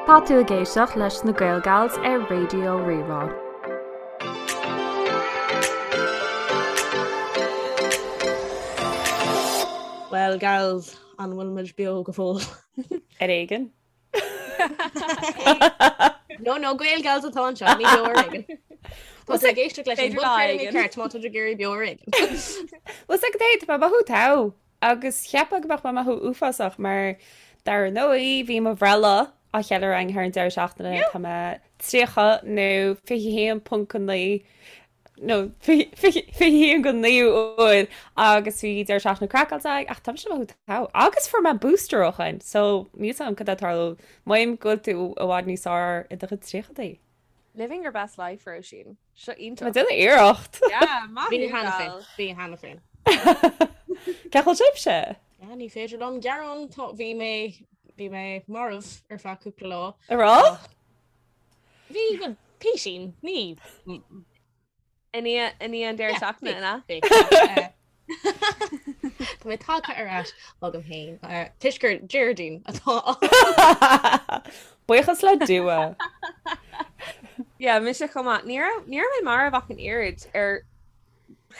Tá tú ag éisteacht leis na Gaelgals ar Raidió Rí-Rá. Well gals, an bhfuil muid beo go fóill? Ar éigean. No, no, Gaelgals atá anseo, ní beo ar éigean. Tá tú ag éisteacht leis an B'fhéidir lá bpodchraoladh éigin. mícheart má tá tú ag iarraidh beo ar éigean. Bhuel 's ag tá mé ag mothú togha agus cheapfá go mbeadh mé ag mothú uafásach mar dar ndóigh bhí mo bhreithlá á cheiliúradh againn thar an deireadh seachtaine tá mé 30 nó 21.9 nó 21 go 9 uair agus bhí deireadh seachtaine craiceáilte againn ach tá mise ag mothú togha agus fuair mé booster ó shin so níl 's agam cad é atá ag tarlú Mothaím go bhfuil tú i bhfad níos fearr i do chuid tríochadaí. Living your best life, Róisín. Seo iontach. Tá mé ag déanamh iarracht. Yeah, maith Bhí thú, cheana féin, gal. bhí cheana féin. Cén chaoi a bhfuil sibhse? Yeah, ní féidir liom gearán, tá, bhí mé, bhí mé marbh ar feadh cúpla lá. A rá? Ach bhí, bhuel, písín, ní. I ndiaidh i ndiaidh an deireadh Yeah, seachtaine, bhí, an ea? bhí. Ach, eh, Tá mé tagtha ar ais chugam féin, eh, toisc gur Déardaoin atá ann. Buíochas le Dua. Yeah, mise chomh maith. Ní raibh ní raibh mé marbh ach an oiread ar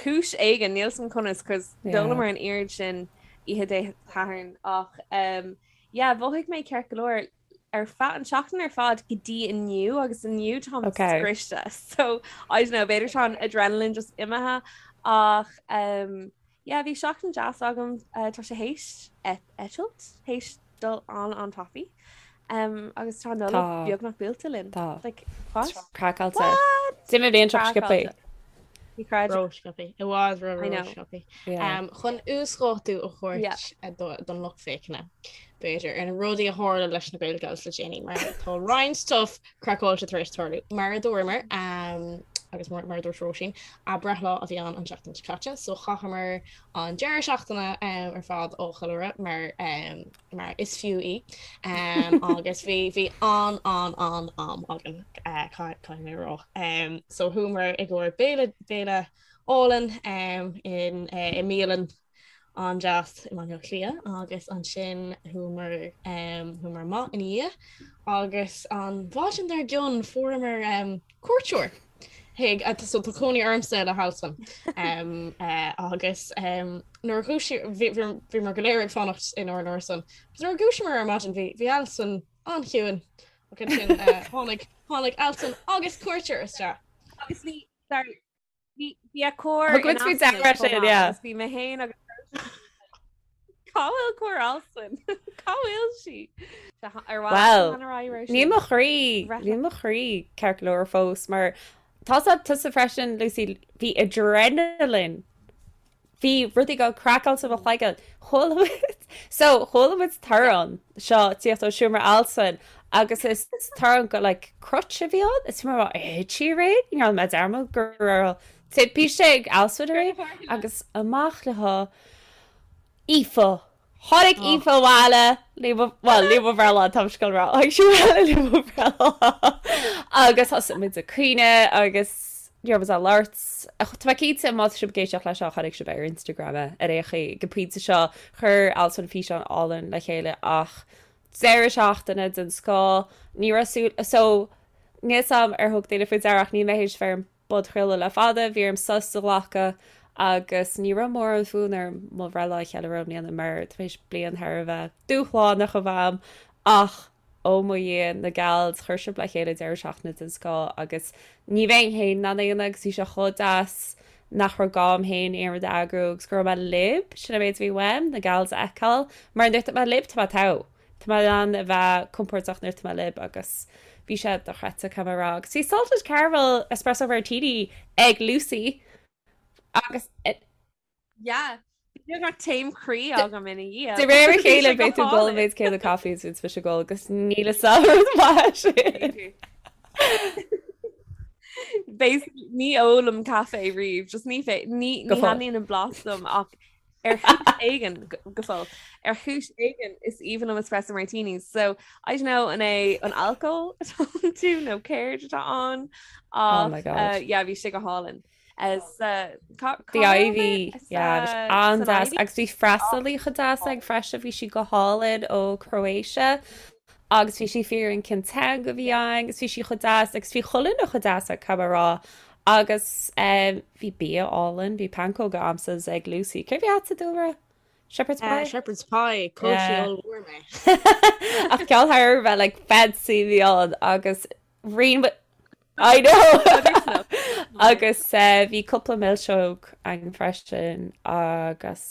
chúis éigin, níl 's agam conas, cos Yeah. d'ólamar an oiread sin oíche Dé Sathairn ach um, yeah, mhothaigh mé ceart go leor ar feadh an seachtain ar fad go dtí inniu agus inniu táim Okay. scriosta so I don't know b'fhéidir tá an adrenaline just imithe ach um, yeah, bhí seachtain deas agam uh, tá sé théis eitilt théis dul an an-tapaidh um, agus tá Nollaig Tá. beagnach buailte linn Tá. like, what? Craiceáilte. What? D'imigh an bhliain seo sciobtha. Craiceáilte. Ní chreidim. Ró-sciobtha. I bhfad ró I know. ró-sciobtha. Yeah. Um, chun uasdátú a thabhairt Yeah. eh, do- don lucht féachana. B'fhéidir ar na rudaí a tharla leis na Gaelgals le déanaí mar tá roinnt stuff craiceáilte tar éis tarlú. Mar a dúramar um, agus mar, mar a dúirt Róisín, a breithlá a bhí ann an tseachtain seo caite, so chaitheamar an deireadh seachtaine um, ar fad á cheiliúradh mar um, mar is fiú í um, agus bhí bhí an an an am againn uh, caithfidh mé a rá. Um, so chuamar i gcomhair béile béile álainn um, in uh, i mbialann an-deas i mBaile Átha Cliath agus ansin chuamar um, chuamar amach ina dhiaidh agus an mhaidin dár gcionn fuaireamar um, cuairteoir chuig so tá cónaí ormsa le hAlswyn um, uh, agus um, nuair a dhúisigh bhíomar go léir ag fanacht inár n-árasán agus nuair a dhúisíomar ar maidin bhí bhí Alswyn an-chiúin ach ansin uh, tháinig tháinig Alswyn agus cuairteoir isteach. Agus bhí sorry Bhí bhí a cór Thug muid faoi deara sin, yeah. Bhí mé féin agus Cá bhfuil cór Alswyn? Cá bhfuil sí? Ar Well, níl mo chroí, níl mo chroí ceart go leor fós mar tá sa tusa freisin, Lucy, bhí adrenaline. Bhí rudaí go craiceáilte i mo chloigeann. Chuala muid, so chuala muid torann seo tíocht ó seomra Alswyn agus is torann go like crutch a bhí ann. Is mar thit sí aréir, ní raibh mé dearmad go raibh timpiste ag Alswyn aréir agus amach le há Aoife. Tháinig Aoife abhaile, le mo, bhuel, le mo bhreithlá, tá mise ag rá, tháinig sí abhaile le mo bhreithlá agus thosaigh muid ag caoineadh agus ní raibh muid á labhairt. Tá mé cinnte má tá sibh ag éisteacht leis seo, chonaic sibh ar Instagram é ar aon chaoi. Ag an pointe seo, chuir Alswyn físeán álainn le chéile ach deireadh seachtaine den scoth, ní raibh súil, so, níl 's a'm ar thug daoine faoi deara ach níl mé théis bheith ar an bpodchraoladh le fada, bhí orm sos a ghlacadh agus ní raibh mórán fonn orm mo bhreithlá a cheiliúradh i mbliana mar tar éis bliain thar a bheith dúshlánach a bheith a'm ach ó mo Dhia, na gals, chuir sibh le chéile deireadh seachtaine den scoth agus ní bheinn féin in ann é a dhéanamh agus bhí sé chomh deas nach raibh gá a'm féin aon rud a eagrú agus go raibh mé libh, sin an méid a bhí uaim, na gals a fheiceáil mar nuair atá mé libh tá mé togha. Tá mé in ann a bheith compordach nuair atá mé libh agus bhí sé dochreidte caithfidh mé a rá. Agus bhí salted caramel espresso martini ag Lucy agus Yeah. Bhí beagnach taom croí agam ina dhiaidh. De réir a chéile beidh tú ag ól an méid céanna caife is a bhíonns mise ag ól agus níl fhios a'm an rud maith sin. Basically ní ólaim caife riamh, just ní fé ní Go ní fóill. thaitníonn an blas liom ach Ar chúis éigin, go fóill, ar chúis éigin is aoibhinn liom espresso martinis. So, I don't know an é an alcól atá iontu nó céard atá ann Oh my ach God. uh, yeah, bhí sé go hálainn. Uh, sa, cá, cá The raibh mé? Ivy, Sa, yeah, bhí sé san an-deas Ivy? agus bhí freastalaí chomh deas againn freisin, bhí sí go hálainn ó Croatia. Agus bhí sí ag fiafraí an cén teanga a bhí ann agus bhí sí chomh deas agus bhí chuile dhuine chomh deas caithfidh mé a rá. Agus bhí bia álainn, bhí pancóga a'msa is ag Lucy. Céard a bhí a'dsa Dúlra? Shepherd's pie? Shepherd's pie, chaill sí ollmhór mé. Ach ceann thar a bheith like fancy a bhí ann agus rinne I know! Agus bhí cúpla milseog ann freisin agus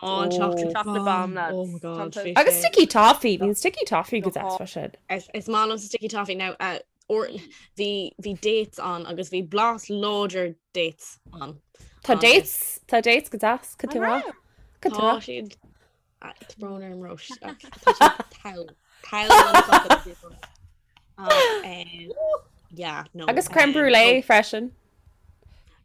Oh, an chocolate Chocolate bomb, lads. Oh my god. Tá- bhí Agus sé- sticky toffee, bhí an sticky toffee go deas freisin. Is is maith liom sticky toffee now. Uh, or bhí bhí dates ann agus bhí blas láidir dates ann. Tá Agus dates, tá dates go deas, go An tú rá. raibh? Go tú Tá rá. siad ah, tá brón orm Róis ach tá siad togha. Togha an chocolate people. Ach, eh, yeah, no. Agus crème eh, brûlée no. freisin.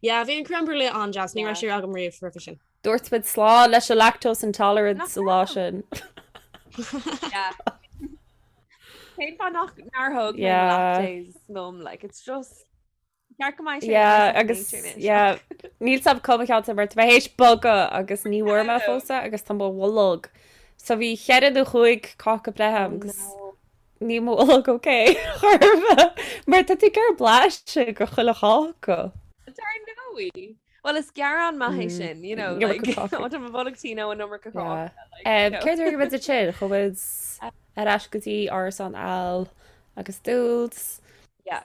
Yeah, bhí an crème brûlée an-deas, ní Yeah. raibh sé agam riamh roimhe sin. Dúirt muid slán leis an lactose intolerance sa lá sin. Yeah. Cén fáth nach nár thóg mé Yeah. lactase liom, like, it's just ceart go mbeidh sé Yeah, second agus nature anois. yeah, níl 's a'm cá mo cheantar mar tá mé théis bogadh agus ní bhfuair mé fós é agus tá mo bholg. So bhí cheithre nó chúig cáca breithe Oh a'm agus no. níl mo bholg ok chor ar bith mar tá tú ag iarraidh blaiseadh de chuile cháca. Dar ndóigh. Well is gearán maith é sin, you know, Iomarca like, cáca. ó tá mo bholg tinn ó an iomarca Yeah. cáca, like, you know. Céard a rinne muid ansin? Chuaigh muid ar ais go dtí árasán Al agus Dúls. Yeah.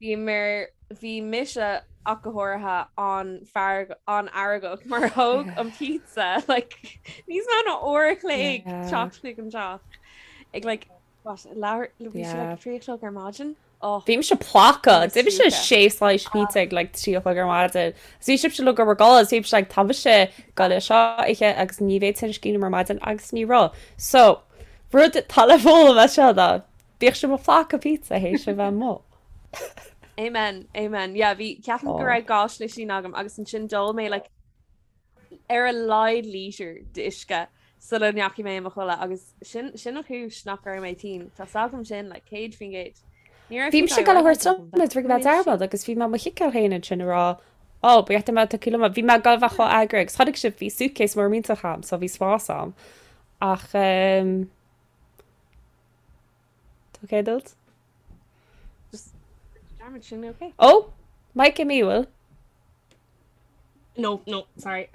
Bhí mar bhí mise ach go háirithe an-fhearg an-fheargach mar thóg an pizza like níos mó ná uair a chloig Yeah. teacht chuig an teach ag like what leathuair bhí sé Yeah. like 3 a chlog ar maidin oh Bhí mise ploctha, Bhí d'ith mise mise sé slice pizza ag like 3 a chlog ar maidin. Is bhí sibhse uilig ag gabháil a chodladh, bhí mise like tá mise ag gabháil é seo a ithe agus ní bheidh tinneas cinn orm ar maidin agus ní raibh. So, rud atá le foghlaim as seo ná bíodh sibh ag plácadh pizza théis a bheith amuigh. Amen, amen. Yeah, bhí ceapaim go Oh. raibh dhá slisín agam agus ansin d'ól mé like ar a laghad lítear d'uisce sula ndeachaigh mé i mo chodladh agus sin sin an chúis nach raibh mé tinn. Tá 's agam sin like 100%. Ní raibh Bhí sí mise ag gabháil a thabhairt agam, liom ag mé dearmad agus bhí mé mo chiceáil féin ansin ag rá Ó, ba cheart dom a bheith tugtha liom. Bhí mé ag gabháil a bheith chomh eagraithe agus chonaic sibh bhí suitcase mór millteach a'm so bhí spás a'm. Ach ehm Tá ok duit? Just dearmad sin ok. Ó, Mike i bhfuil? No, no, sorry.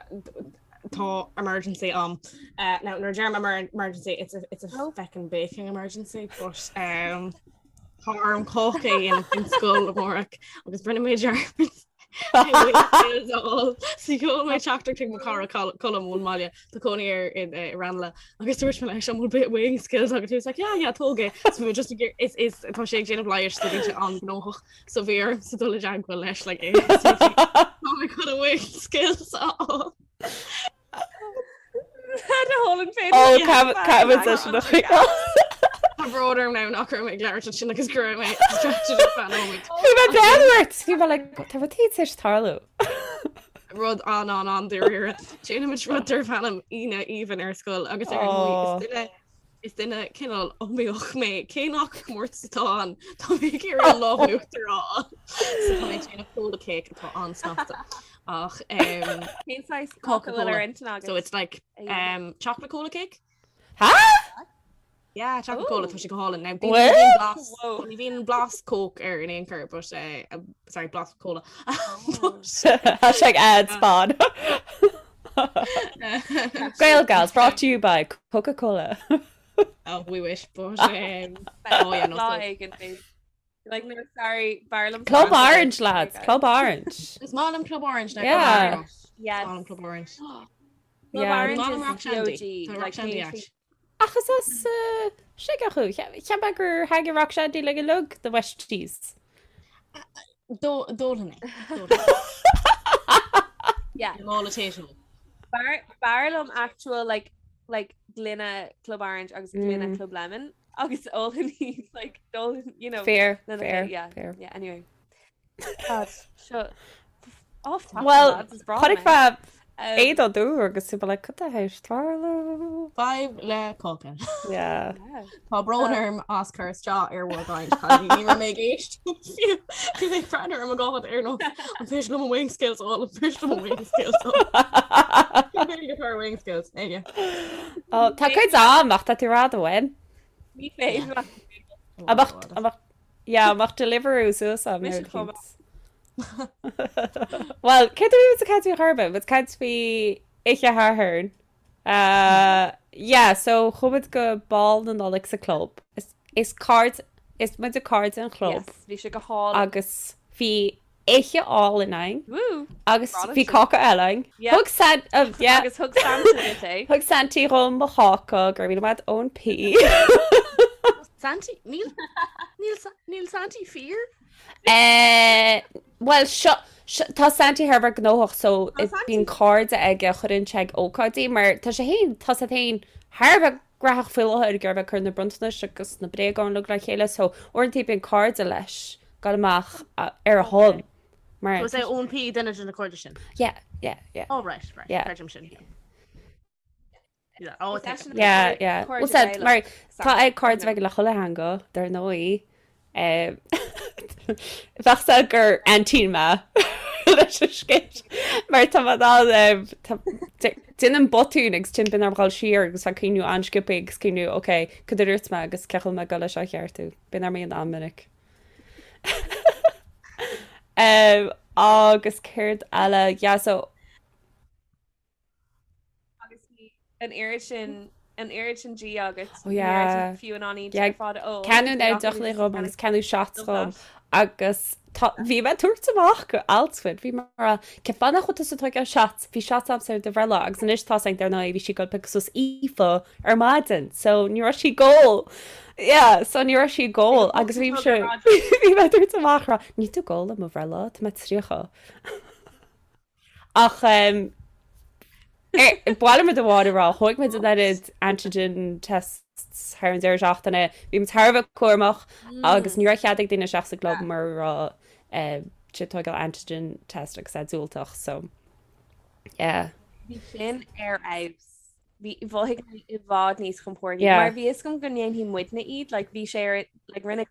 Tá emergency a'm. Uh, now, nuair a deirim emergency, it's a, it's a Oh. feckin' baking emergency, but um, tá orm cáca a dhéanamh don scoil amárach agus rinne mé dearmad So sheol mé teachtaireacht chuig mo chara Colm ón mbaile tá cónaí air in eh, Ranelagh agus dúirt mé leis an bhfuil bit wing skills agat he was like yeah yeah tóg é so bhí just ag is is tá sé ag déanamh leighis so bhí sé an-ghnóthach so bhí orm sa dul i dteagmháil leis like é Tá mé chun a wing skills a fháil. Ó, caithfidh sé sin a choinneáil. Tá brón orm now nach raibh mé ag labhairt ansin agus go raibh mé distracted ar feadh nóiméid. Bhí mé breathnú ort! Bhí mé like, tá rud éigin tar éis tarlú. Rud an an an dáiríre. Déanaimid rud darb ainm Aoine Aoibhinn ar scoil agus ar ndóigh is duine is duine cineál iomaíoch mé cé nach comórtas atá ann tá mé ag iarraidh an lámh in uachtar a fháil. So tá mé ag déanamh cola cake atá an-snasta. Ach um, Cén saghas Coca-Cola. cáca bhfuil ar intinn agat? so it's like um, chocolate cola cake. Ha? Yeah, chocolate cola Ooh. tá sé go hálainn. Now, What? ní bhíonn blas Whoa. ní bhíonn blas coke air in aon chor, but uh, sorry, blas cola. Oh. Hashtag ad spon. Gael Gals brought to you by Coca-Cola. oh, we wish, but um, oh yeah, no, Lá so, éigin, babe. Like, no, sorry, b'fhearr liom Club Orange. Orange, lads. Club Orange. Is maith liom Club Orange now. Yeah. Club Orange. Yes. Is maith liom Club Orange. Club Yeah. Orange Maith liom is Rock Shandy. OG. Tá Rock Like, Shandy cén act. Ach is as uh, Sligeach thú. Cheap mé gur thaitnigh Rock Shandy le go uilig the Westies. D'ólfainn é. Yeah. Mála tae. B'fhearr b'fhearr liom actual like like gloine Club Orange agus gloine Mm. Club Lemon agus ólfainn iad like d'ólfainn you know Fair, lena fair, chéile. yeah fair. yeah anyway God seo off topic Well, lads is breá chonaic mé mé um, éadan dúr agus tú like cad tá théis tarlú. Fadhb le cáca. Yeah. yeah. Tá brón orm as cur isteach ar bhur gcaint cailíní. Ní raibh mé ag éisteacht fiú. Bhí mé ag breathnú ar mo ghád ar nós an féidir liom wing skills a fháil, an féidir liom wing skills a fháil. Bhí mé ag wing skills. Aige. Oh, tá cuid am ach tá tú rá bhain. Ní féidir leat. Amach, amach, yeah, amach Deliveroo suas am Mise chomh maith. Well, céard a bhí muid ag caint faoi chor ar bith? Muid ag caint faoi Oíche Shathairn. Uh, yeah, so chuaigh muid go Bál na Nollag sa club. Is, is cairde, is muid cairde an chlub. Yes, bhí sé go hálainn. Agus bhí oíche álainn againn. Woo! Agus bhí cáca eile againn. Yeah. Thug San, uh, yeah. Agus thug Santa duit é. Thug Santy dhom mo cháca, go raibh míle maith Eoin P. Santy, níl, níl, níl Santy fíor? Eh, Well, seo, seo, tá Santy thar a bheith gnóthach so Tá Santy. bíonn cairde aige a chuireann sé ag ócáidí mar tá sé féin, tá sé féin thar a bheith graitheach faoi láthair ag iarraidh a bheith ag cur na bronntanais agus na bréagáin uilig le chéile so uaireanta bíonn cairde leis ag dul amach ar a shon mar So is é Eoin P duine de na cairde sin? Yeah, yeah, yeah. Oh right, right, Yeah. creidim sin. Yeah, oh, Is eisean Yeah, cairde yeah. Well said, Gaelach, mar tá Santa. ag cairde bheith le chuile theanga, dar ndóigh. Bheadh sé gur aintín mé leis an scéal mar tá mé in ann déanaim botún agus ansin bíonn orm dhul siar agus bheith ag cuimhniú an-sciobtha agus cuimhniú ok, cad a dúirt mé agus cén chaoi a bhfuil mé ag dul leis seo a cheartú. Bíonn orm é a dhéanamh an-mhinic. Agus céard eile? Yeah, so Agus bhí an oiread sin an oiread sin dí agat Oh yeah. fiú in ann iad Yeah, ar fad a ól. Ceannadh Bhí gach deoch duine dhom just agus ceannadh shots Love dhom that. agus tá bhí mé ag tabhairt amach go alt bhí mar cén fáth nach bhfuil tusa ag tógáil shots bhí shots agamsa ar do bhreithlá agus anois tá sé dar ndóigh bhí sí ag dul piocadh suas Aoife ar maidin so ní raibh sí ag ól yeah so ní raibh sí ag ól agus bhí sé bhí mé ag tabhairt amach rá níl tú ag ól ar mo bhreithlá tá mé 30 Ach ba mhaith liom rud amháin a rá, thóg muid an oiread antigen tests thar an deireadh seachtaine, bhí muid thar a bheith cúramach agus ní raibh cead ag daoine isteach sa gclub mura raibh siad ag tógáil antigen test agus é diúltach, so yeah. Bhí sin ar fheabhas. Bhí mhothaigh mé i bhfad níos compordaí Yeah. mar bhí fhios agam go ndéanfaidh muidne iad, like bhí sé ar like rinne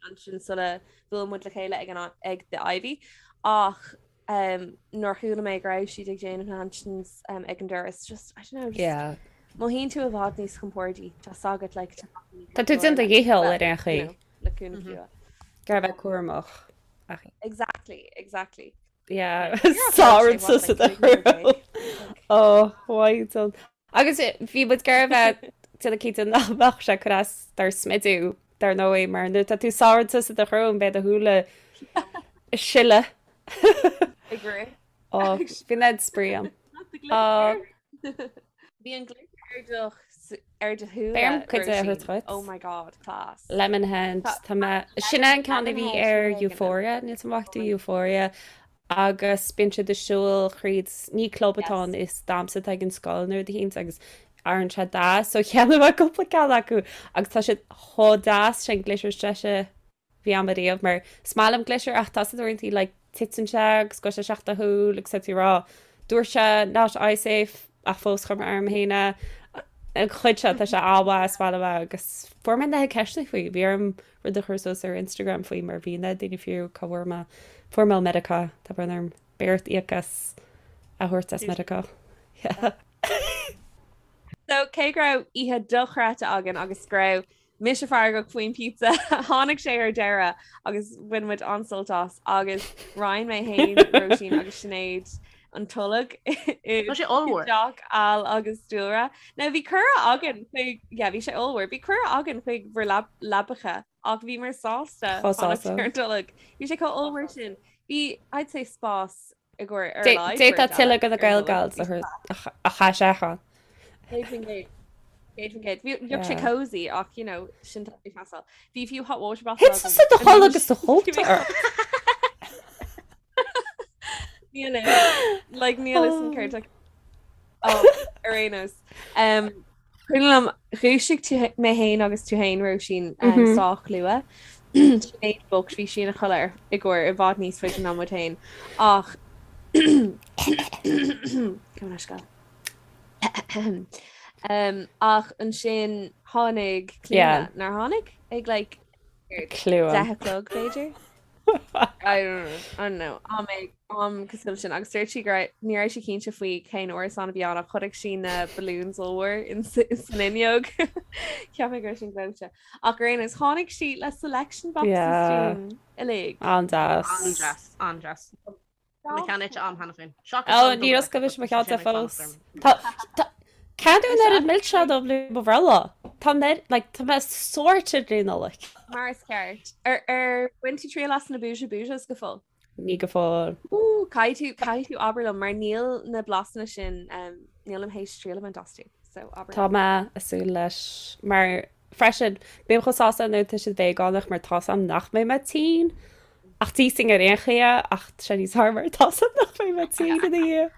ansin sula bhuail muid le chéile ag an ag The Ivy ach um, nuair a chuala mé go raibh siad ag déanamh na antigens um, ag an doras just I don't know just Yeah. mothaíonn tú i bhfad níos compordaí tá 's agat like Tá tú déanamh do dhícheall ar aon chaoi. le cúnamh mm Ag iarraidh a bheith cúramach. Ach Exactly, exactly. Yeah, You're Sár okay, what, sa like, 300 Oh, why don't Agus bhí muid ag iarraidh a bheith déanamh cinnte nach mbeadh sé ag cur as dár smidiú, dar ndóigh, mar nuair atá tú sáite sa do shrón beidh do shúile ag sileadh. Ag rith. Ó, bhí an spraoi ann. Ó. Bhí an glitter ar do ar do shúile. Beidh orm cuid a thabhairt dhuit. Oh my god, class. Lemonhead, tá mé, sin é an ceann a bhí ar Euphoria, níl 's agam an bhfaca tú Euphoria, agus bíonn siad ag siúl thríd, ní club atá ann, is damhsa atá ag an scoil nó rud eicínt agus athraíonn sé dath, so cheannaigh mé cúpla ceann acu agus tá siad chomh deas, sin glitter is deise a bhí agam ariamh mar is maith liom glitter ach tá sé uaireanta like titeann sé agus gabhann sé isteach do shúil agus tá tú ag rá dúirt sé not eye safe ach fós chuir mé orm féin é an chuid seo tá sé an-mhaith is maith liom é agus fuair mé na ceisteanna faoi bhí orm rud a chur suas ar Instagram faoi mar bhí na daoine ag fiafraí cá bhfuair mé fuair mé ó Meiriceá tá brón orm beidh ort íoc as a thabhairt as Meiriceá. Yeah. So cé go raibh oíche dochreidte againn agus go raibh mise feargach faoin pizza tháinig sé ar deireadh agus bhain muid an-sult as agus roinn mé féin Róisín agus Sinéad an tolg i Tá sé ollmhór. dteach Al agus Dúlra. Now bhí cuireadh againn chuig yeah, bhí sé ollmhór. Bhí cuireadh againn chuig bhur leab- leabacha ach bhíomar sásta Chomh fanacht sásta. ar an tolg. Bhí sé chomh ollmhór sin. Bhí I'd say spás i gcomhair ar Dé- a laghad D'fhéadfá beirt eile tuilleadh de na ar an tolg. Gael Gals a Bhí chur- a ch- a chaith sé ann. 100%. 100%. Bhí bheadh sé Yeah. cozy ach you know sin tá ag teastáil. Bhí fiú hot water bottle Thit tusa do chodladh agus do chóta ort. Níl like níl fhios agam céard oh, ar aon nós. Um, Cuimhin liom dhúisigh tú mé féin agus tú féin Róisín um, mm -hmm. sách luath. Sinéad bocht bhí sí ina chodladh i gcomhair i bhfad níos faide ná muid féin ach um, ach ansin tháinig Clíona nár tháinig ag like Cluain. 10 a chlog b'fhéidir. I don't know, I don't know. Am ag am cosúil sin agus dúirt sí go raibh ní raibh sí cinnte faoi cén árasán a bhí ann ach chonaic sí na balloons ollmhór in san fhuinneog. Cheap mé go raibh sin gleoite. Ach ar aon nós tháinig sí le selection boxes Yeah. dúinn uilig. An-deas. An-deas, an-deas. Tá mo cheann ite a'm cheana féin. Seachas Ó, an níor double oscail mise mo decker, cheann tá de sé ag fanacht fós. orm. Tá, tá, Ceann an oiread milseán dom le mo bhreithlá. Tá mé, like, tá mé sorted le Nollaig. Mar is ceart. Ar ar bhain tú triail as na Booja Boojas go fóill? Ní go fóill. Ooh, caithfidh tú, caithfidh tú abair liom mar níl na blasanna sin, um, nílim théis triail a bhaint astu. So abair Tá liom. mé ag súil leis mar freisin, bím chomh sásta nuair atá siad veigeánach mar tá's a'm nach mbeidh mé tinn. Ach d'íosfainn ar aon chaoi é ach tá sé níos fearr mar tá's a'm nach mbeidh mé tinn ina dhiaidh.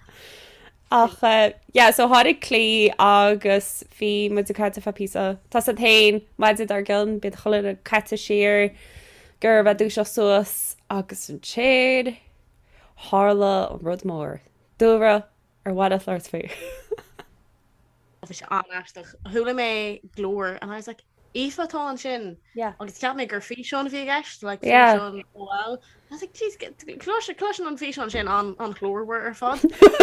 Ach eh, yeah, so tháinig Claí agus bhí muid ag caint ar feadh píosa. Tá's a'd féin, maidin dár gcionn, bíonn chuile dhuine caite siar, gur bheith dúiseacht suas agus ansin tharla an rud mór. Dúlra, ar mhaith leat labhairt faoi? Bhí sé an-aisteach. Chuala mé glór and I was like, Aoife atá ansin. Yeah. Agus cheap mé gur físeán a bhí i gceist, like Yeah. físeán OL. I was like, jeez, clois cloiseann an físeán sin an an ghlórmhar ar fad.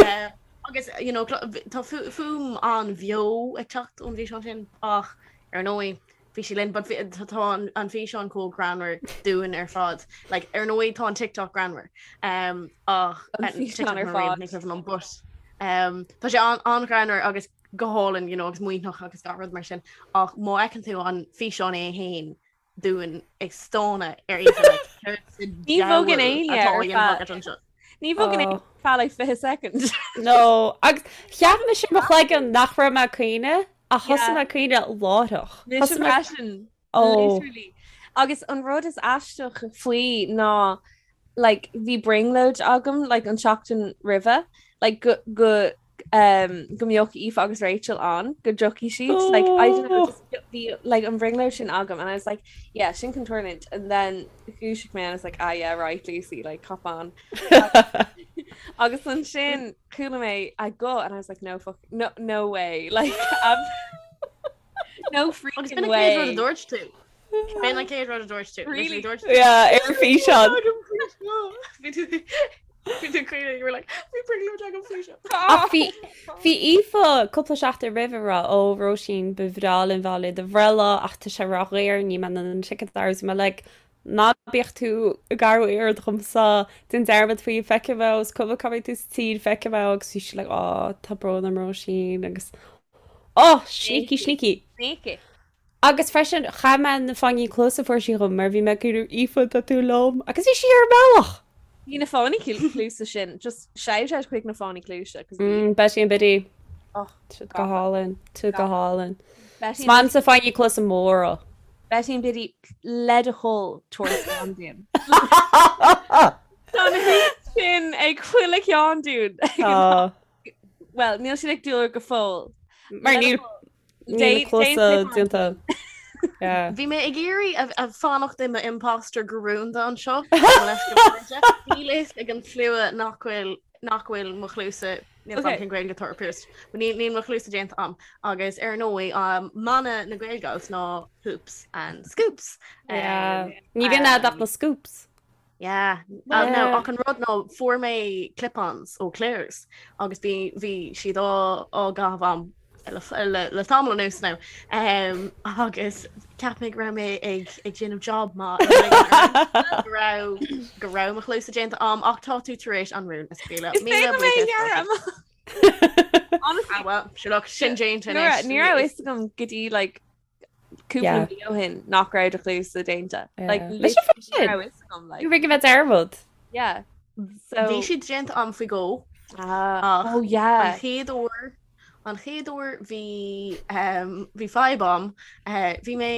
Eh, agus you know, clo- tá fu- fuaim an-bheo ag teacht ón bhfíseán sin ach ar ndóigh bhí sí linn, but bhí- tá tá an an físeán chomh greannmhar dúinn ar fad. Like, ar ndóigh tá an TikTok greannmhar. Um, ach An eh, físeán TikTok ar mar aon, fad. ní cuimhin liom, but um, tá sé an- an-ghreannmhar agus go hálainn, you know, agus maoithneach agus gach rud mar sin. Ach má fheiceann tú an físeán é féin dúinn ag stánadh ar Aoife, like, céard sa Ní bhogann diabhal éinne atá á ar dhéanamh feadh- agat anseo? Ní bhogann Oh. éinne ar feadh like 20 second. No, agus cheap mise mo chloigeann nach raibh mé ag caoineadh ach thosaigh Yeah. mé ag caoineadh láithreach. Mise Thosaigh mé freisin. Oh. Literally. Agus an rud is aisteach faoi ná like bhí brionglóid agam like an tseachtain roimhe like go go um, go mbeadh Aoife agus Rachel ann go dtiocfaidh siad like I don't know Oh. just bhí like an bhrionglóid sin agam and I was like yeah sin chun tarlúint and then dhúisigh mé and I was like ah yeah right Lucy like cop on agus ansin chuala mé a guth and I was like no fuck no no way like um, no Agus freaking b'in an chéad rud a way dúirt tú. B'in an chéad rud a dúirt tú. Really? Literally dúirt tú. Yeah, ar físeán. Bhí tú bhí tú caoineadh, you were like, bhí brionglóid agam faoi seo. Ach bhí bhí Aoife cúpla seachtain roimh ag rá ó Róisín ba bhreá linn bheith i do bhreithlá ach tá sé ródhaor níl mé in ann an ticket a fháil. Bhí mé like ná bíodh tú ag athrú aird dhomsa déan dearmad faoi feicfidh mé is cuma cá mbeidh tú sa tír feicfidh mé agus bhí sí like ó tá brón orm Róisín agus oh sneaky sneaky. Sneaky. Agus freisin, chaith mé na fáinní cluasa a fuair sí dhom mar bhí mé ag iarraidh Aoife tá tú liom agus bhí sí ar an mbealach! Bhí na fáinní cluasa sin, just shout out chuig na fáinní cluasa 'cause bhí Mm, Betty and Biddy. Oh, Siad go hálainn, tú go hálainn. Betty Is maith liomsa fáinní cluasa móra. Betty and Biddy le do thoil tabhair slán dúinn. Tá na hoops sin ag chuile cheann dúinn. Tá. Well, níl siad ag dúil go fóill. Mar níl Níl na cluasa déanta. Bhí mé ag iarraidh a fanacht i m'imposter go rúnda anseo. Níl fhios ag an slua nach bhfuil nach bhfuil mo chluasa níl okay. cén Gaeilge atá ar pierced. Níl níl mo chluasa déanta a'm agus ar ndóigh um, mana na Gaelgals ná hoops and scoops. Yeah. Ní bhíonn agat ach na scoops. Yeah. Uh, no, ach an rud ná fuair mé clip-ons ó Claire's agus bhí bhí siad á á gcaitheamh a'm le, le, le tamall anuas now. Um, agus cheap mé go raibh mé ag ag déanamh job maith go raibh go raibh mo chluasa déanta a'm ach tá tú tar éis an rún a scaoileadh. Is féidir mé a ghearradh amach. Honestly, ah, well, sure look, sin déanta Ní raibh anois. ní raibh fhios agam go dtí like cúpla Yeah. mí ó shin nach raibh do chluasa déanta. Like, Yeah. literally Mise freisin. ní raibh fhios agam, like. Ní raibh mé dearmad. Yeah. So Bhí siad déanta a'm faoi dhó. Ah, Ach oh yeah. An chéad uair an chéad uair bhí um, bhí fadhb a'm. Uh, bhí mé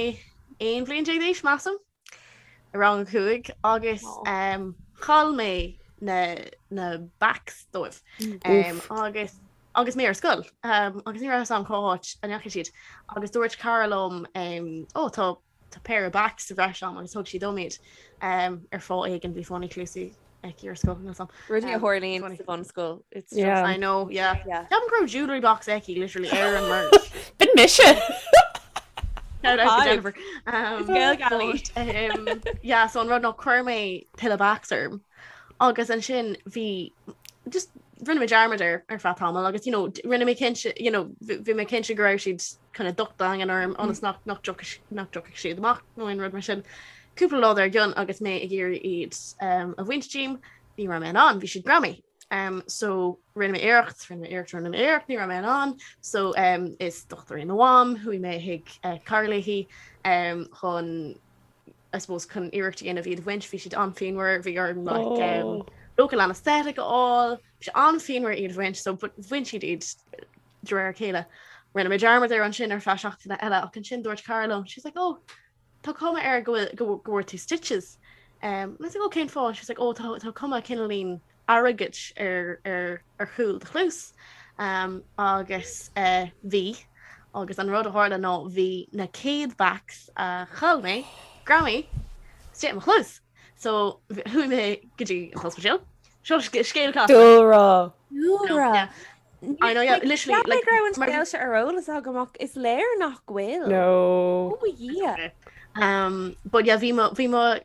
11 bhliain d'aois measaim i rang a 5 agus um, chaill mé na, na backs dóibh. Um, agus agus mé ar scoil um, agus ní raibh fhios a'm cá háit a ndeachaigh siad agus dúirt cara liom um, ó tá tá péire backs sa bhreis a'm agus thug sí dom iad um, ar fáth éigin bhí fáinní cluasaí aici ar scoil níl 'fhios a'm. Rudaí a Um, tharlaíonn funny. sa bhunscoil. It's just Yeah. I know, yeah. Yeah. Ceapaim go raibh jewellery box aici literally ar an merch. B'in mise. Shout out to Jennifer. Gael But, yeah, so an rud ná chuir mé tuilleadh bags orm. Agus ansin bhí just rinne mé dearmad air ar feadh tamaill agus you know, rinne mé cinnte you know, bhí mé cinnte go raibh siad kind of docht daingean orm ionas nach nach nach dtiocfadh siad amach nó aon rud mar sin. Cúpla lá dár gcionn agus mé ag iarraidh iad um, a bhaint díom, ní raibh mé in ann, bhí siad greamaithe. Um, so rinne mé iarracht, rinne mé iarracht, rinne mé iarracht, ní raibh mé in ann. So um, is dochtúir í mo mham, chuaigh mé chuig uh, cara léi um, chun I suppose chun iarracht a dhéanamh iad a bhaint, bhí siad an-phianmhar, bhí orm like, um, oh. local anesthetic a fháil, bhí sé an-phianmhar iad a bhaint, so but bhain siad iad de réir a chéile. Rinne mé dearmad air ansin ar feadh seachtaine eile ach ansin dúirt cara liom, she's like, oh, tá cuma air go bhfuil go bhfuair tú stitches. Um, I was like, oh, cén fáth? She's like, oh, tá, tá cuma cineáilín airgid ar, ar, ar chúl do chluas. Um, agus uh, bhí, agus an rud a tharla ná bhí na céad bags a chaill mé, greamaithe istigh i mo chluas. So chuaigh mé go dtí an t-ospidéal. Seo scéal casta. Dúlra. Dúlra. Yeah. I know, yeah, literally, like, go raibh an scéal seo ar eolas agam ach is léir nach bhfuil. No. Oh yeah. Um, but yeah, bhí mo, bhí mo,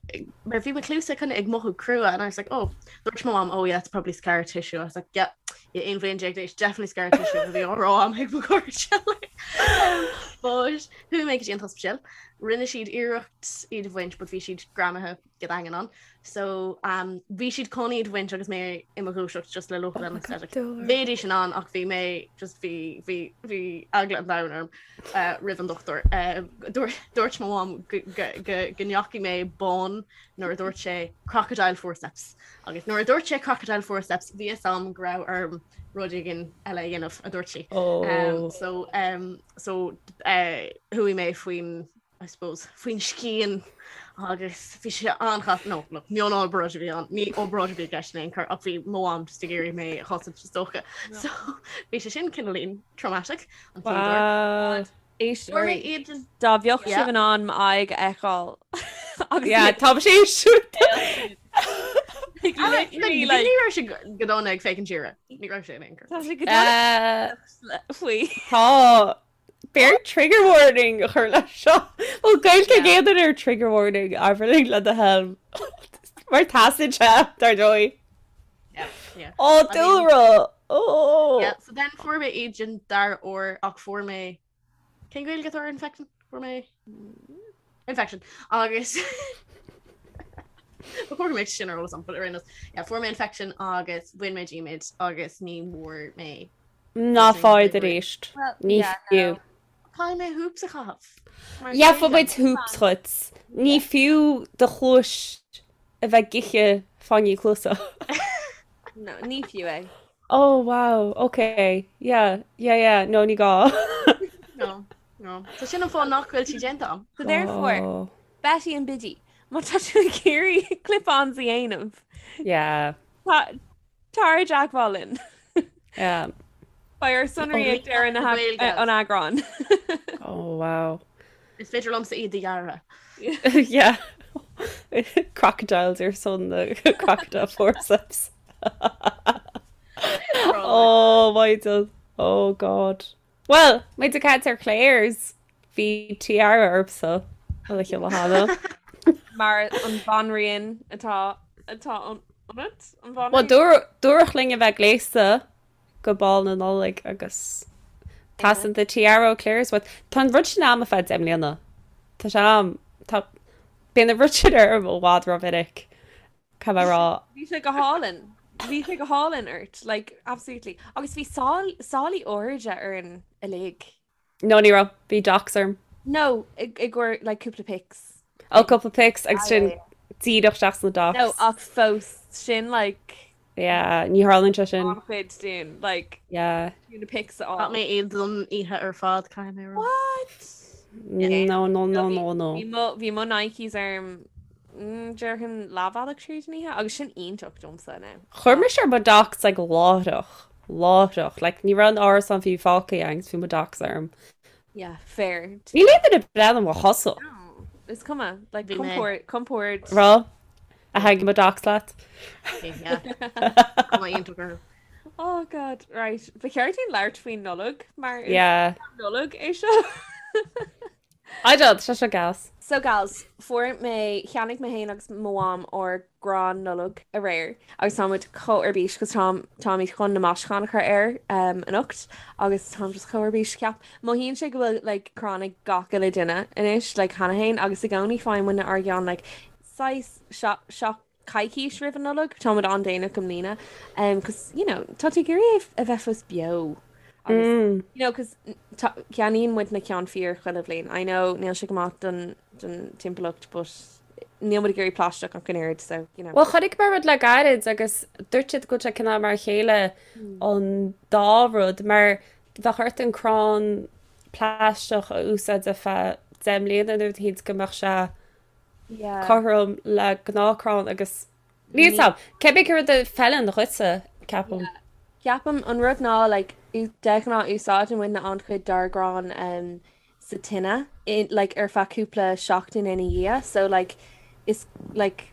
mar bhí mo chluasa kind of ag mothú crua and I was like, oh, dúirt mo mom, oh yeah, it's probably scar tissue. I was like, yeah, yeah, 11 bhliain d'aois, definitely scar tissue a bhí á rá agam ag mo chairde. Um, but chuaigh mé go dtí an t-ospidéal, rinne siad iarracht iad a bhaint, but bhí siad greamaithe go daingean ann. So um, bhí siad chun iad a bhaint agus mé i mo dhúiseacht just le local anesthetic. Bheidís in ann ach bhí mé just bhí bhí bhí eagla an domhain orm uh, roimh an dochtúir. Uh, dúirt mo mham go ndeachaigh mé bán nuair a dúirt sé crocodile forceps. Agus nuair a dúirt sé crocodile forceps bhí a fhios agam go raibh orm rud éigin eile a dhéanamh a dúirt sí. Oh. Um, so um, so uh, chuaigh mé faoin I suppose, faoin scian agus bhí sé an-chasta, no, look, mionobráid a bhí ann, ní obráid a bhí i gceist in aon chor ach bhí mo mham just ag iarraidh mé a chosaint is dócha. So bhí sé sin cineáilín traumatic an chéad uair. Wow. Fuair mé iad an Dá mbeadh Yeah. sibh in ann m'aghaidh a fheiceáil. Agus Yeah, tá sé siúd. like, literally, Ní like, raibh sé go dona ag féachaint siar. Ní raibh sé in aon chor. tá sé go dona faoi. Tá B'fhearr trigger warning a chur leis seo. Bhfuil Gaeilge ag aon duine ar trigger warning Aibhirling le do thoil. Mar teastaíonn sé, dar ndóigh. Yeah, yeah. Ó, dúlra! Ó! Yeah, so then fuair mé iad den dara huair ach fuair mé Cén Gaeilge atá ar infection? Fuair mé infection agus Ba chóir go mbeadh sin ar eolas agam, but ar aon nós, yeah, fuair mé infection agus bhain mé díom iad agus ní bhfuair mé Ná faigh arís. Ní fiú. Caithfidh mé hoops a chaitheamh. Gheobhaidh muid hoops dhuit. Ní fiú do chluais a bheith ag ithe fáinní cluasa. No, ní fiú é. Oh wow, ok, yeah, yeah, yeah, no ní gá. No, no. So sin an fáth nach bhfuil sí déanta agam. So therefore, Oh. Betty and Biddy, má tá tú ag iarraidh clip-ons a dhéanamh, Yeah. tá Tar i dteagmháil linn. Yeah. Beidh ár sonraí ag deireadh na Gaeilge. an eagráin. Oh wow. Is féidir liomsa iad a dhearadh. Yeah. Crocodiles ar son na crocodile forceps. Oh my God. Oh God. Well, muid ag caint ar Claire's, bhí tiara ormsa an oíche cheana. Mar an bhanríon atá atá ionat, an Well, bhanríon? dúradh dúradh linn a bheith gléasta go bál na Nollag agus teastaíonn do tiara ó Claire's uait. Tá an rud sin a'm ar feadh 10 mbliana. Tá sé a'm. Tá bíonn an rud sin orm i bhfad rómhinic. Caithfidh mé a rá. Bhí sé go hálainn. Bhí sé go hálainn ort, like, absolutely. Agus bhí sálaí airde orainn uilig. No, ní raibh. Bhí docs orm. No, i gcomhair, like, cúpla pics. Oh, cúpla pics agus sin díreach isteach sna docs. No, ach fós, sin, like... Yeah, ní tharlaíonn sé sin. An-chuid dúinn, like, Yeah. na pics a fháil. Chaith mé iad don oíche ar fad, caithfidh mé a rá. What? No, no, no, no, no. Bhí mo, bhí mo Nikes orm, mm, déarfainn leathbhealach tríd an oíche, agus sin iontach domsa now. Chuir mise ar mo docs like láithreach, láithreach, like ní raibh an árasán fiú fágtha agus bhí mo docs orm. Yeah, fair. Níl aon duine ag breathnú mo chosa. No, is cuma, like Bhí mé. compord, compord. Raibh? A thaitnigh mo docs leat? Yeah. Cuma iontach orthu. Oh God, right. Ba cheart dúinn labhairt faoin Nollaig mar is Yeah. Nollaig é seo. I don't, tá sé gas. So gals, fuair mé, cheannaigh mé féin agus mo mham ár gcrann Nollag aréir agus tá muid chomh ar bís cos táim, táimid chun na maisiúcháin a chur air um, anocht agus táim just chomh ar bís. Ceap, mothaíonn sé go bhfuil like crann ag gach uile duine anois like cheana féin agus i gcónaí faigheann muidne ár gceann like saghas seach coicís roimh an Nollaig, táimid an-déanach i mbliana um, cos you know, tá tú ag iarraidh é a bheith fós beo agus mm. you know, cos ceannaíonn muid na ceann fíor chuile bhliain. I know níl sé go maith don, don timpeallacht but níl muid ag iarraidh plaisteach ach an oiread so you know. Well chonaic mé rud le gairid agus dúirt siad go bhfuil sé cineál mar a chéile mm. an dá rud mar bheadh ort an crann plaisteach a úsáid ar feadh 10 mbliana nó rud go mbeadh sé cothrom le gnáthchrann agus níl 'fhios a'm, cibé cén rud a fheileann dhuitse, ceapaim. Ceapaim an rud ná like de ghnáth úsáideann muidne an-chuid dár gcrann um, sa tine in, like ar feadh cúpla seachtain ina dhiaidh so like is like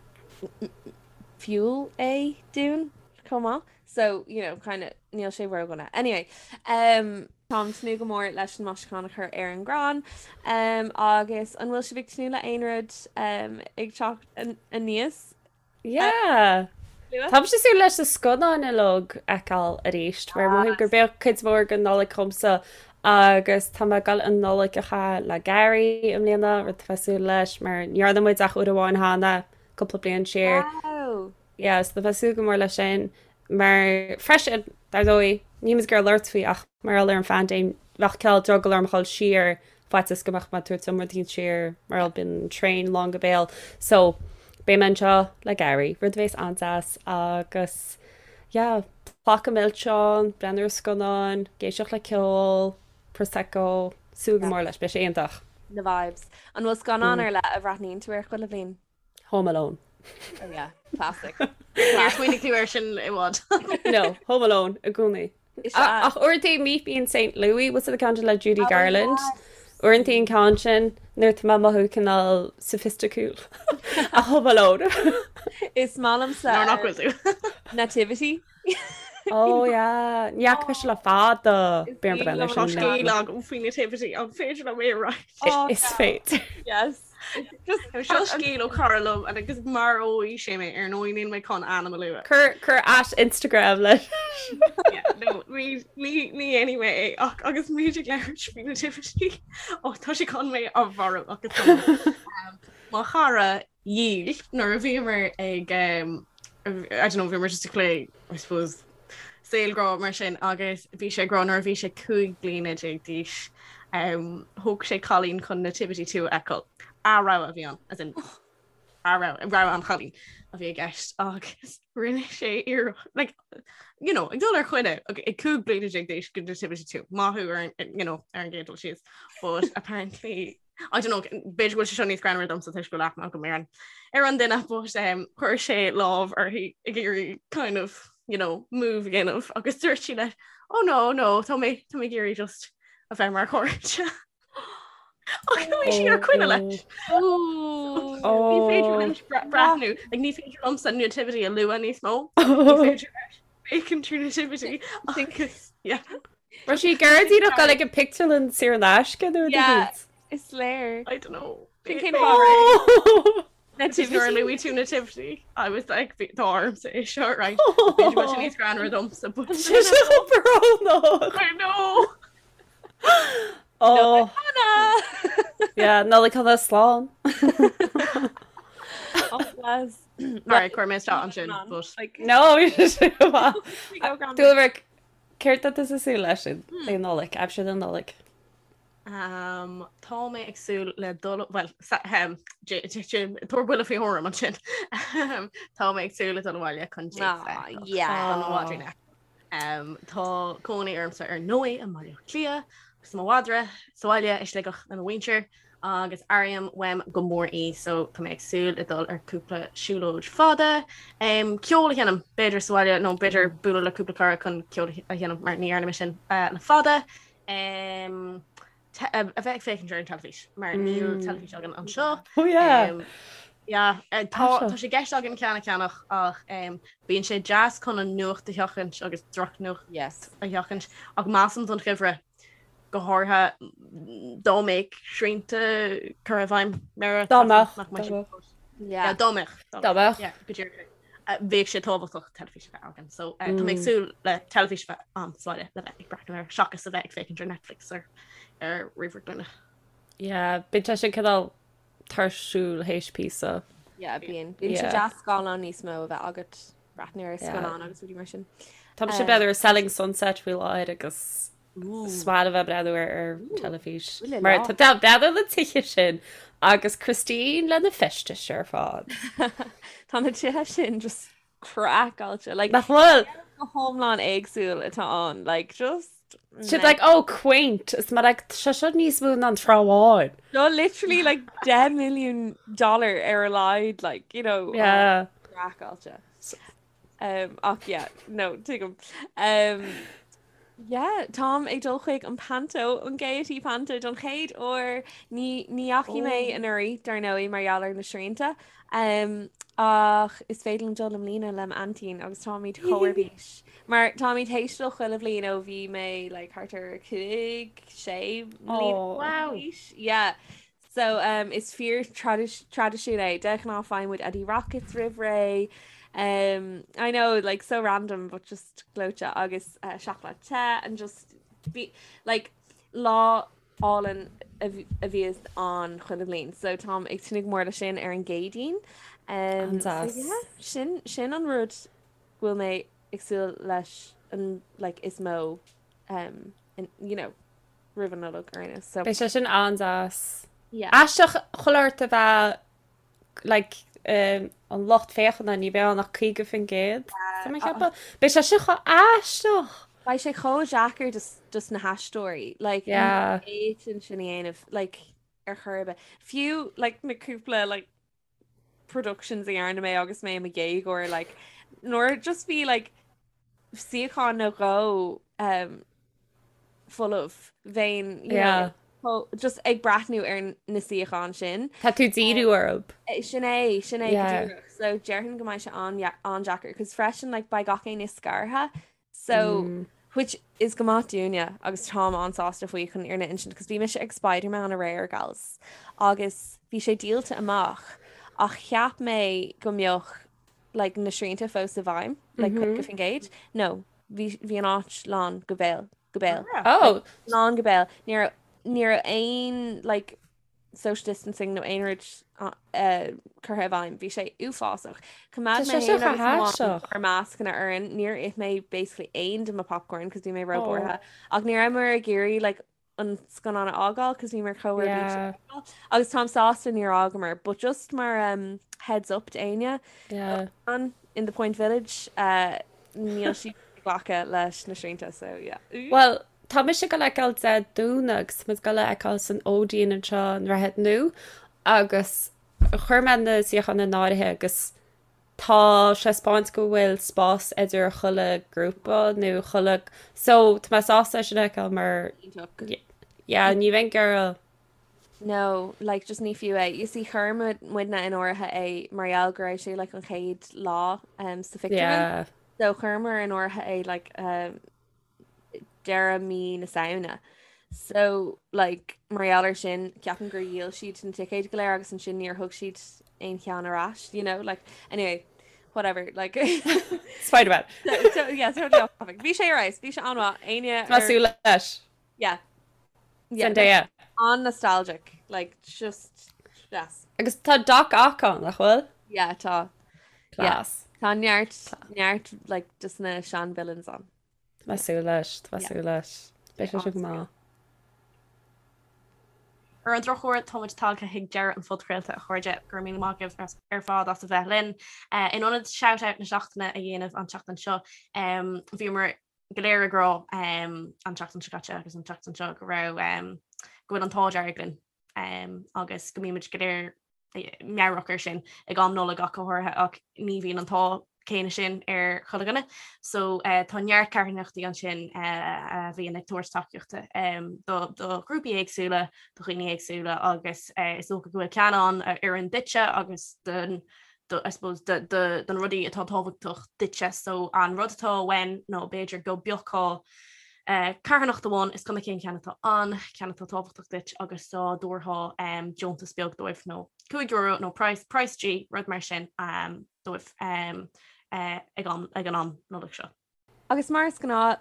fuel é dúinn chomh maith so you know kind of níl sé ródhona. Anyway, um, táim tnúth go mór leis an maisiúchán a chur ar an gcrann um, agus an bhfuil sibh ag tnúth le aon rud um, ag teacht aníos? Yeah. Táimse ag súil leis na scannáin uilig a fheiceáil arís, mar mothaím gurb é cuid mhór den Nollaig dhomsa agus tá mé ag dul an Nollaig a chaitheamh le Gary i mbliana, rud atá mé ag súil leis mar ní dhearna muid ach uair amháin cheana, cúpla bliain siar. Wow! Yeah, so tá mé ag súil go mór leis sin mar freisin, dar ndóigh, níl muid ag iarraidh labhairt faoi ach mar gheall ar an phaindéim, bheadh cineál drogall orm a dhul siar faitíos go mbeadh mé ag tabhairt an rud éicint siar mar gheall bíonn an traein lán go béal. So, beidh mé anseo le Gary, rud a bheas an-deas agus yeah, pláca milseán, breathnú ar scannáin, ag éisteacht le ceol, Prosecco, súil go mór leis, beidh sé iontach. Na vibes. An bhfuil scannán ar leith a bhreathnaíonn tú air chuile bhliain? Home Alone. Oh yeah, classic. Níor smaoinigh tú air sin i bhfad. No, Home Alone i gcónaí. Ach uaireanta Meet Me in St. Louis, what's the ceann le Judy oh, Garland? Uaireanta an ceann sin nuair tá mé ag mothú cineál sophisticiúil. Ach Home Alone. Is maith liomsa Nuair nach bhfuil tú. Nativity. Oh yeah, ní fhaca mise le fada. B'fhéidir breathnú air sin. Tá scéal agam faoi Nativity, an féidir liom é a roinnt? Is féidir. Yes. Seo scéal ó chara liom agus maróidh sé mé ar ndóigh níl mé chun ainm a lua. Cuir cuir at Instagram leis. No, ní ní ní dhéanfaidh mé é ach agus muid ag labhairt faoi Nativity ó tá sé chun mé a mharú agus tá mo chara dhíl nuair a bhíomar ag um, I don't know, bhíomar just ag plé I suppose saol grá mar sin agus bhí sé ag rá nuair a bhí sé 15 bliana d'aois um, thóg sé cailín chun Nativity 2 a fheiceáil. A rogha a bhí ann, as in a rogha, rogha an chailín a bhí i gceist agus rinne sé iarracht, like, you know, ag dul ar choinne ag 15 bliana d'aois go Nativity 2, maith thú ar an, you know, ar an gcéad dul síos, but apparently I don't know, b'fhéidir go bhfuil sé seo níos greannmhaire domsa toisc go bhfuil aithne agam ar an ar an duine but um, chuir sé lámh uirthi ag iarraidh kind of you know, move a dhéanamh agus dúirt sí leis oh no no tá mé tá mé ag iarraidh just a bheith mar chairde. Ach bhí sí ar coinne leis. Ní féidir leis breathnú, ag ní féidir liomsa nativity a lua níos mó. Ní féidir leis féachaint ar nativity agus yeah. Raibh sí ag iarraidh díreach dul ag an pictiúrlann saor in aisce nó rud éicint? Is léir. I don't know. Sin cén fáth Nativity. Nuair a luaigh tú nativity, I was like, tá ormsa é seo, right? B'fhéidir go bhfuil sé níos greannmhaire domsa, but Sé seo brónach. I know. Oh. Yeah, Nollaig shona slán. Oh, bless. Alright, chuir mé isteach ansin, but No, bhí sé go maith. Dúlra, Céard atá tú ag súil leis le Nollaig, aimsir na Nollag? Um, tá mé ag súil le dul well um, tabhair buille faoi thuairim ansin. Tá mé ag súil le dul abhaile chun ah, yeah. Um, tá cónaí ormsa ar ndóigh i mBaile Átha Cliath agus mo mhadra sa bhaile i Sligeach le mo mhuintir. agus airím uaim go mór í so tá mé ag súil le dul ar cúpla siúlóid fada, um, ceol a sheinm b'fhéidir sa bhaile nó b'fhéidir bualadh le cúpla cara chun ceol a sheinm mar ní dhearna mé sin uh, le fada. Um, a bheith ag féachaint ar an teilifís mar níl mm. teilifís againn anseo. Oh yeah. Um, yeah, eh, tá tá sé i gceist againn ceann a cheannach ach um, bíonn sé deas chun an nuacht a sheachaint agus drochnuacht yes. a sheachaint ach measaim don gheimhreadh. Go háirithe dá mbeadh srianta curtha i bhfeidhm mar Dá mbeadh, nach mbeadh dá mbeadh. Yeah. Dá mbeadh. Dá mbeadh. Yeah, go díreach. Bheadh sé tábhachtach teilifís a bheith againn. So tá mé ag súil le teilifís a bheith ann sa bhaile le bheith ag breathnú air seachas a bheith ag féachaint ar Netflix ar ar ríomhaire glúine. Yeah, bíonn sé sin cineál tuirsiúil théis píosa. Yeah, bíonn. Bíonn sé deas scáileán níos mó a bheith agat breathnú ar scannán agus rudaí mar sin. Tá mise ag breathnú ar Selling Sunset faoi láthair agus is maith liom a bheith ag breathnú ar ar teilifís. Mar tá breathnú ar na tithe sin agus Christine lena feistis ar fad. Tá na tithe sin just craiceáilte. Like, Nach bhfuil? Go hiomlán éagsúil atá ann. Like, just... Siad like, oh, quaint. Is mar like, sé seo níos mó ná an Trá Bháin. No, literally like 10 milliún dollar ar a laghad, like, you know. Yeah. Craiceáilte. Um, ach yeah, no, tuigim. Um, yeah, táim ag dul chuig an Panto, an Gaiety Panto don chéad uair. Ní, ní dheachaigh mé oh. anuraidh, dar ndóigh, mar gheall ar na srianta. Um, ach is féidir liom dul i mbliana le m'aintín agus táimid chomh ar bís. Mar táimid théis dul chuile bhliain ó bhí mé like, thart ar 5, 6 mbliana Oh. Wow. d'aois. Yeah. So um, is fíor traidisiún é. De ghnáth faigheann muid Eddie Rockets roimh ré. Um, I know, like so random, but just gleoite agus uh, seacláid te and just be, like lá álainn a bhíos ann chuile bhliain. So táim ag tnúth go mór le sin ar an gCéadaoin. Um, so An-deas. yeah, sin, sin an rud go bhfuil mé ag súil leis an like is mó um, in, you know, roimh an Nollaig ar aon nós. So Beidh sé sin an-deas. Yeah. Aisteach chuile shórt a bheith like um, an lucht féachana ní bheidh ann ach 50%. Tá mé ag ceapadh. Beidh sé sin chomh aisteach. Beidh sé chomh deacair dos, dos na haisteoirí like Yeah. ní fhéadfainn sin a dhéanamh like ar chor ar bith. Fiú like na cúpla like productions a dhearna mé agus mé i mo dhéagóir like nuair just bhí like suíochán nó dhó um, folamh bheinn you Yeah. know, just ag breathnú ar na suíocháin sin. Tá tú díriú orthu. Eh, Sin é, sin é go Yeah. díreach. So déarfainn go mbeidh sé an-deacair, cos freisin like beidh gach éinne scartha So, Mm. which is go maith dúinne agus táim an-sásta faoi chun fhírinne a insint, cos bhí mise ag Spider-Man aréir, gals, agus bhí sé díolta amach ach cheap mé go mbeadh like na srianta fós i bhfeidhm, like 50%. No, bhí bhí an áit lán go béal, go béal. Oh, Lán go béal. Ní raibh ní raibh aon like social distancing nó aon rud curtha i bhfeidhm. Bhí sé uafásach. Choimeád Tá mé sé seo féin agus chomh mo mham haisteach. ár mascanna orainn. Níor ith mé basically aon de mo popcorn cos bhí mé Oh. róbhuartha. Ach ní rabhamar ag iarraidh like an scannán a fhágáil cos bhíomar chomh ar bís Yeah. Agus táim sásta níor fhágamar, but just mar um, heads up d'éinne Yeah. an in the Point Village uh, níl siad ag glacadh leis na srianta so yeah. Well, Tá mise ag dul a fheiceáil Dé Domhnaigh agus tá muid ag dul a fheiceáil san Odeon anseo i nDroichead Nua agus chuir mé na suíocháin in áirithe agus tá sé ag 'spáint go bhfuil spás idir chuile grúpa nó chuile so tá mé sásta é sin a fheiceáil mar Iontach. yeah ní bheinn ag iarraidh No, like just ní fiú é. You see chuir muidne in áirithe é mar gheall go raibh sé like an chéad lá um, sa phictiúrlann. yeah. So chuireamar in áirithe é like um, deireadh mí na Samhna. So like mar gheall ar sin ceapaim gur dhíol siad na ticéid go léir agus ansin níor thug siad aon cheann ar ais, you know, like anyway, whatever, like Spider-Man. so, so, yeah, totally off topic. Bhí sé ar fheabhas, bhí sé an-mhaith, éinne Tá súil leis. Yeah. Yeah, Zendaya. an-nostalgic, like just yes. Agus tá Doc Ock ann, nach bhfuil? Yeah, tá. Yeah. Class. Tá neart neart like just na sean villains ann. Tá mé ag súil leis, tá mé ag Yeah. súil leis. Beidh sé sin go maith. Ar an drochuair, táimid tagtha chuig deireadh an phodchraolta, a chairde. Go raibh míle maith agaibh ar fad as a bheith linn. In ionad shout-out na seachtaine a dhéanamh an tseachtain seo, bhíomar go léir ag rá an tseachtain seo caite agus an tseachtain seo go raibh go bhfuil an t-ádh dearg linn agus go mbímid go léir meabhrach air sin ag am Nollag ach go háirithe ach ní bhíonn an t-ádh céanna sin ar chuile dhuine. So uh, tá neart carthanachtaí ansin uh, a bhíonn ag tabhairt tacaíochta um, do, do ghrúpaí éagsúla, do dhaoine éagsúla agus uh, is dócha go bhfuil ceann ann a oireann duitse agus don do, I suppose, do, do, don rudaí atá tábhachtach duitse. So an rud atá uainn nó b'fhéidir go bpiocfá Carthanacht amháin, is cuma cén ceann atá ann, ceann atá tábhachtach duit agus dá dtabharfá deontas beag dóibh nó €5 nó praghas, praghas G, rud mar sin dóibh ag an am Nollag seo. Agus mar is gnáth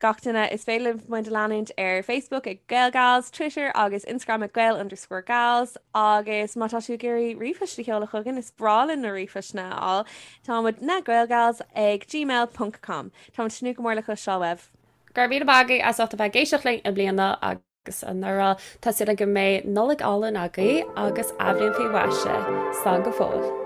gach duine, is féidir libh muid a leanúint ar Facebook ag GaelGals, Twitter agus Instagram ag Gael underscore Gals agus má tá tú ag iarraidh ríomhphost a sheoladh chugainn, is breá linn na ríomhphostanna a fháil, tá muid na Gaelgals ag gmail ponc com. Táimid ag tnúth go mór le cloisteáil uaibh. Go raibh míle maith agaibh as ucht a bheith ag éisteacht linn i mbliana agus anuraidh. Tá súil agam go mbeidh Nollaig álainn agaibh agus athbhliain faoi mhaise. Slán go fóill.